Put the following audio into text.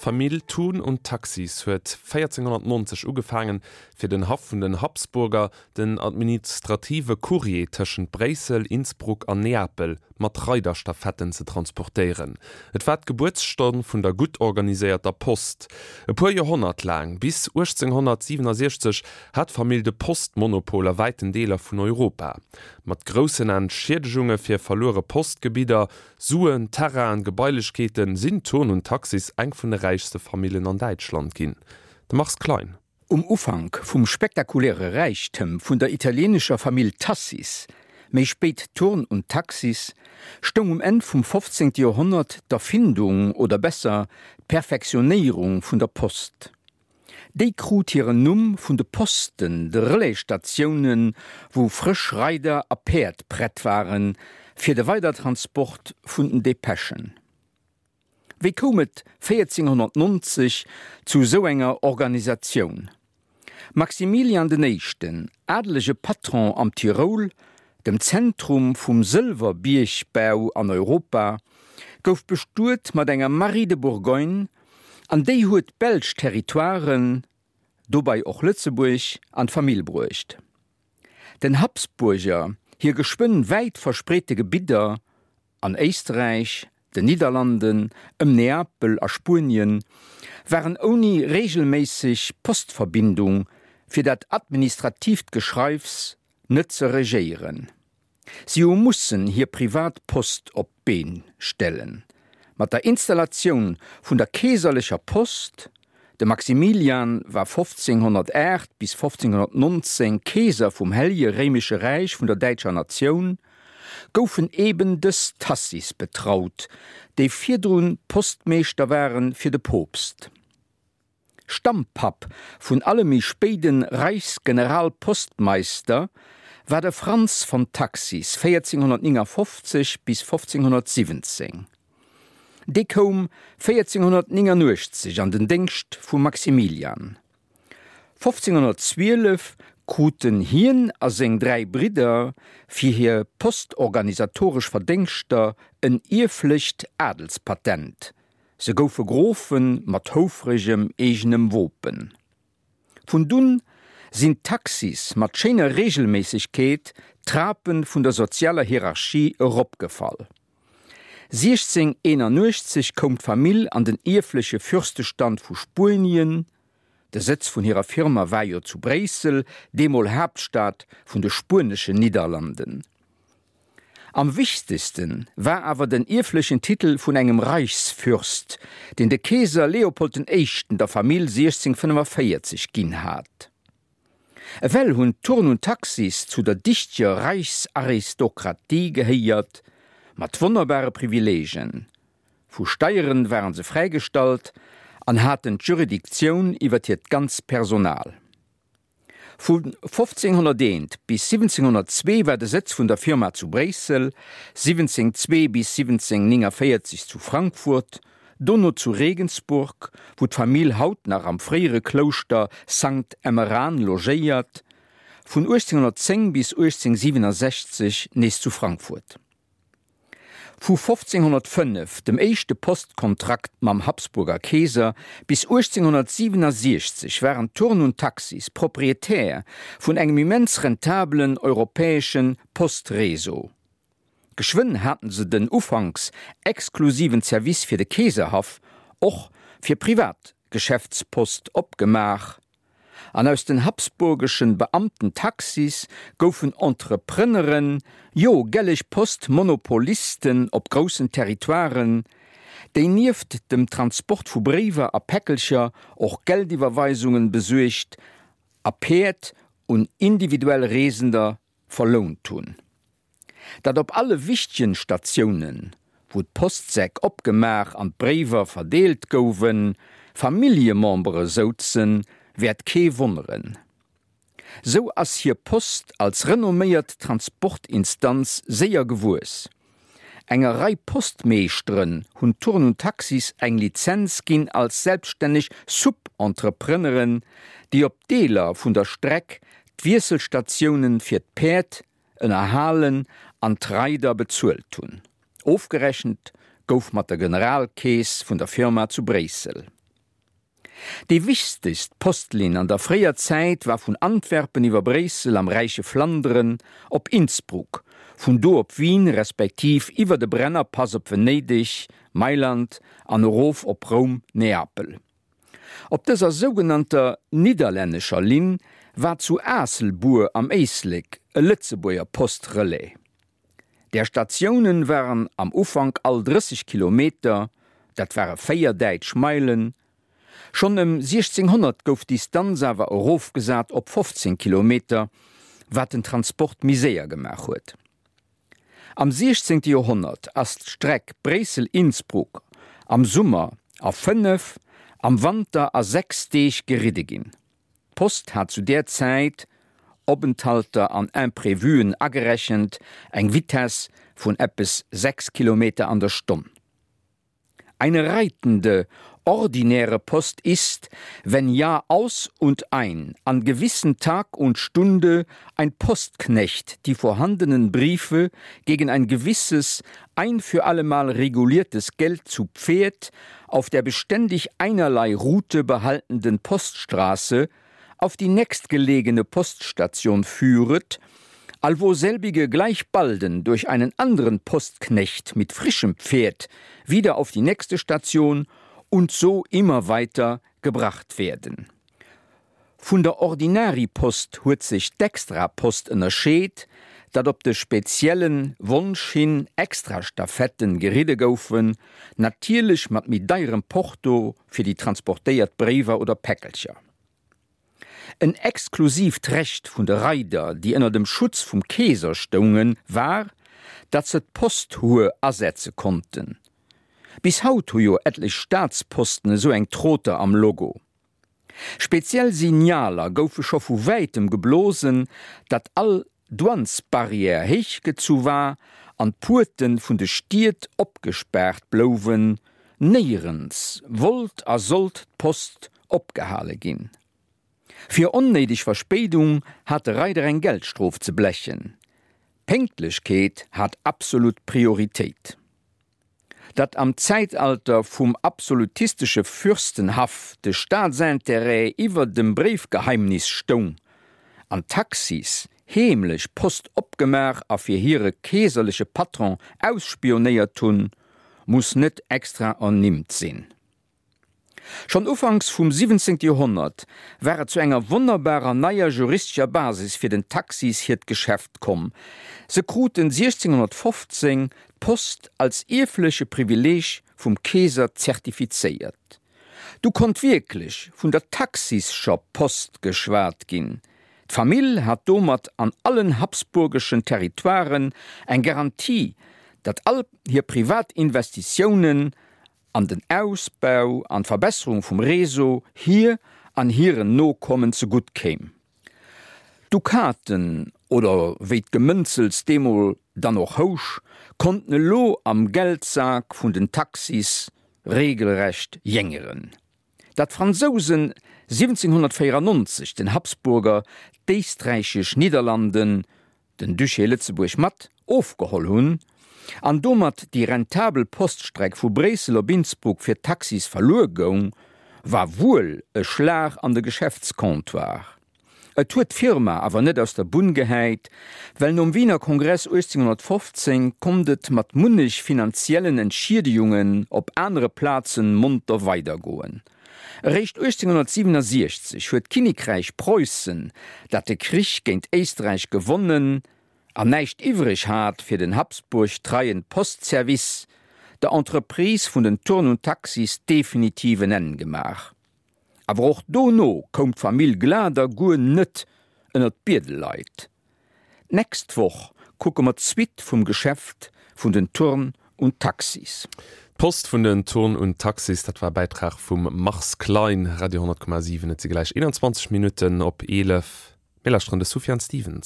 D'Famill Thun und Taxis huet 1490 ugefaangen, fir den Haff vun den Habsburger den administrative Courrier tëschent Bréissel, Innsbruck an Neapel mat Reiderstafetten ze transportéieren. Et war d'Gebuertsstonn vun der gutt organiséierter Post. E puer Joerhonnert laang, bis 1867, hat d'Famill de Postmonopol a wäiten Deeler vun Europa. Mat groussen Entschiedegunge fir verluere Postgebidder, Suen, Terrainen, Gebailechkeeten, sinn Thurn und Taxis eng vun de räichste Famillen an Däitschland ginn. De Mars Klein. Um Ufank vum spektakuläre Räichtëm vun der italieenescher Famill Tassis, méi spéit Thurn und Taxis, stoung um Enn vum 15. Joerhonnert d'Erfindung oder besser d'Perfektionéierung vun der Post. Déi krut hiren Numm vun de Posten, de Relaisstatiounen, wou frësch Reider a Päerd prett waren, fir de Weidertransport vun den Depeschen. Wéi koum et 1490 zu sou enger Organisatioun? Maximilian den Éischten, adelege Patron am Tiroul, dem Zentrum vum Sëlwerbiergbau an Europa, gouf bestuet mat enger Marie de Bourgogne an déi huet d'belsch Territoiren, dobei och Lëtzebuerg, an d'Famill bruecht. Den Habsburger hir geschwënn wäit verspreete Gebidder An Éisträich, den Nidderlanden, ëm Neapel a Spuenien waren ouni reegelméisseg Postverbindung fir dat administratiivt Geschreifs net ze regéieren. Si hu mussen hir privat Post op d'Been stellen. Mat der Installatioun vun der keeserlecher Post, de Maximilian war 1508 bis 1519 Keeser vum Hellje Réimesche Räich vun der däitscher Natioun, goufen eben dës Tassis betraut, déi virdrun Postmeeschter ware fir de Poopst. Stammpapp vun alle méi spéiden Reichsgeneralpostmeister war de Franz von Taxis, 1459 bis 1517. Dee koum 1489 an den Déngscht vum Maximilian. 1512 kruten hien a seng 3 Bridder fir hir postorganisatoresch Verdéngschter en ierflecht Adelspatent, se goufe Grofe mat houfregem eegenem Wopen. Vun dunn sinn d'Taxis mat schéiner Reegelméissegkeet d'Trape vun der sozialer Hierarchie eropgefall. 1681 koum d'Famill an den ierfleche Fürstestand vu Spuenien, de Sëtz vun hirer Firma war jo zu Bréissel, deemol Haaptstad vun de Spueneschen Nidderlanden. Am wichtegste war awer den ierflechen Titel vun engem Reichsfürst, deen de Keeser Leopold den Éischten der Famill 1645 ginn hat. Ewell hunn d'Thurn und Taxis zu der dichteger Reichsaristokratie gehéiert, mat wonnerbare Privileegen. Vu Steieren waren se fräigestallt an haten d'Juridictioun iwwer hiert ganz Personal. Vu 1501 bis 1702 war de Sëtz vun der Firma zu Bréissel, 1702 bis 1749 zu Frankfurt, dono zu Regensburg, wou d'Famill haut nach am fréiere Klouschter Sankt Emmeran logéiert, vun 1810 bis 1867 nees zu Frankfurt. Vu 1505, dem éischte Postkontrakt mam Habsburger Keeser, bis 1867 waren Thurn und Taxis Proprietär vun engem immens rentabelen europäesche Postreseau. Geschwënn haten se den ufanks exklusiven Service fir de Keeserhaff och fir privat Geschäftspost opgemaach an aus den habsburgeschen Beamtentaxis goufen Entrepreneren, jo gelleg Postmonopolisten op groussen Territoiren, déi nieft dem Transport vu Bréiwer a Päckelcher och Geldiwwerweisungen besuergt a Päerd un individuell Reesender verlount hunn. Datt op alle wichtegen Statiounen, wou d'Postsäck opgemaach an d'Bréiwer verdeelt gouwen, Familljemembere souzen, wäert kee wonneren. Sou ass hir Post als renomméiert Transportinstanz séier gewuess. Enger Rei Postmeeschteren hunn Thurn und Taxis eng Lizenz ginn als selbststänneg Sub-Entrepreneren, déi op Deeler vun der Streck d'Wiesselstatiounen fir d'Päerd ënnerhalen an d'Reider bezuelt hunn. Ofgerechent gouf mat der Generalkeess vun der Firma zu Bréissel. Déi wichtegst Postlinn an der fréier Zäit war vun Antwerpen iwwer Bréissel am räiche Flanderen op Innsbruck, vun do op Wien respektiv iwwer de Brennerpass op Venedeg, Mailand an erof op Roum, Neapel. Op dëser sougenannter nidderlännescher Linn war zu Aasselbuer am Éislek e Lëtzebuerger Postrelais. Där Statiounen waren am Ufank all 30 Kilometer, dat ware 4 däitsch Meilen. Schonn ëm 1600 gouf d'Distanz awer erofgesat op 15 Kilometer, wat den Transport méi séier gemaach huet. Am 16. Joerhonnert ass d'Streck Bréissel-Innsbruck am Summer a 5, am Wanter a 6 Deeg geridde ginn. D'Post hat zu där Zäit, Openthalter an Imprévuen agerechent, eng Vitess vun eppes 6 Kilometer an der Stonn. Eine reitende, ordinäre Post ist, wenn Jahr aus und ein an gewissen Tag und Stunde ein Postknecht die vorhandenen Briefe gegen ein gewisses, ein für allemal reguliertes Geld zu Pferd auf der beständig einerlei Route behaltenden Poststraße auf die nächstgelegene Poststation führet, allwo selbige gleich balden durch einen anderen Postknecht mit frischem Pferd wieder auf die nächste Station und so immer weiter gebracht werden. Vun der Ordinary-Post huet sech d'Extra-Post ënnerscheet, datt op de spezielle Wonsch hin Extra-Stafetten geridde goufen, natierlech mat méi deierem Porto fir déi transportéiert Bréiwer oder Päckelcher. En exklusiivt Recht vun de Reider, déi ënner dem Schutz vum Keeser stoungen, war, datt se d'Posthuer asetze konnten. Bis haut hu jo etlech Staatsposten esou eng Troter am Logo. Speziell Signaler goufe scho vu wäitem geblosen, datt all Douanesbarrière héichgezu war an d'Puerte vun de Stied opgespaart blouwen, néierens wollt a sollt d'Post opgehale ginn. Fir onnéideg Verspéidung hat de Reider eng Geldstrof ze blechen. Pénktlechkeet hat absolut Prioritéit. Datt am Zäitalter vum absolutistesche Fürstenhaff de Staatsintérêt iwwer dem Bréifgeheimnis stoung an d'Taxis heemlech Post opgemaach a fir hire keeserleche Patron ausspionéiert hunn, muss net extra ernimmt sinn. Schonn ufanks vum 17. Joerhonnert war et zu enger wonnerbarer neier juristescher Basis fir den Taxis hiert Geschäft komm. Se kruten 1615 d'Post als ierfleche Privileeg vum Keeser zertifizéiert. Du konnt wierklech vun der taxischer Post geschwat ginn. D'Famill hat domat an allen habsburgeschen Territoiren eng Garantie, datt all hir privat Investitiounen an den Ausbau an d'Verbesserung vum Réseau hir an hiren Nokommen zegutt kéim. D'Dukaten, oder wéi d'Gemënzels deemol dann och housch, konnten elo am Geldsak vun den Taxis regelrecht jéngeren. Datt d'Fransousen 1794 den Habsburger d'éisträichesch Nidderlanden, den Duché Lëtzebuerg mat ofgeholl hunn an domat déi rentabel Poststreck vu Bréissel op Innsbruck fir d'Taxis verluer goung, war wuel e Schlag an de Geschäftscomptoir. Et huet d'Firma awer net aus der Bunn gehäit, well nom Wiener Kongress 1815 konnt et mat munnech finanziellen Entschiedegungen op anere Plazen monter weidergoen. Eréischt 1867 huet d'Kinnekräich Preussen, dat de Krich géint Éisträich gewonnen an näischt iwwreg hat fir den Habsburg treien Postservice, der Entreprise vun den Turn und Taxis definitiv en Enn gemaach. Awer och dono koum d'Famill Glader guer net ënnert d'Biedelleit. D'nächst Woch kucke mer d'Suite vum Geschäft vun den Turn und Taxis. D'Post vun den Turn und Taxis, dat war e Bäitrag vum Mars Klein. Radio 10,7, et si gläich 21 Minutten op 11. Mir lauschteren de Sufjan Stevens.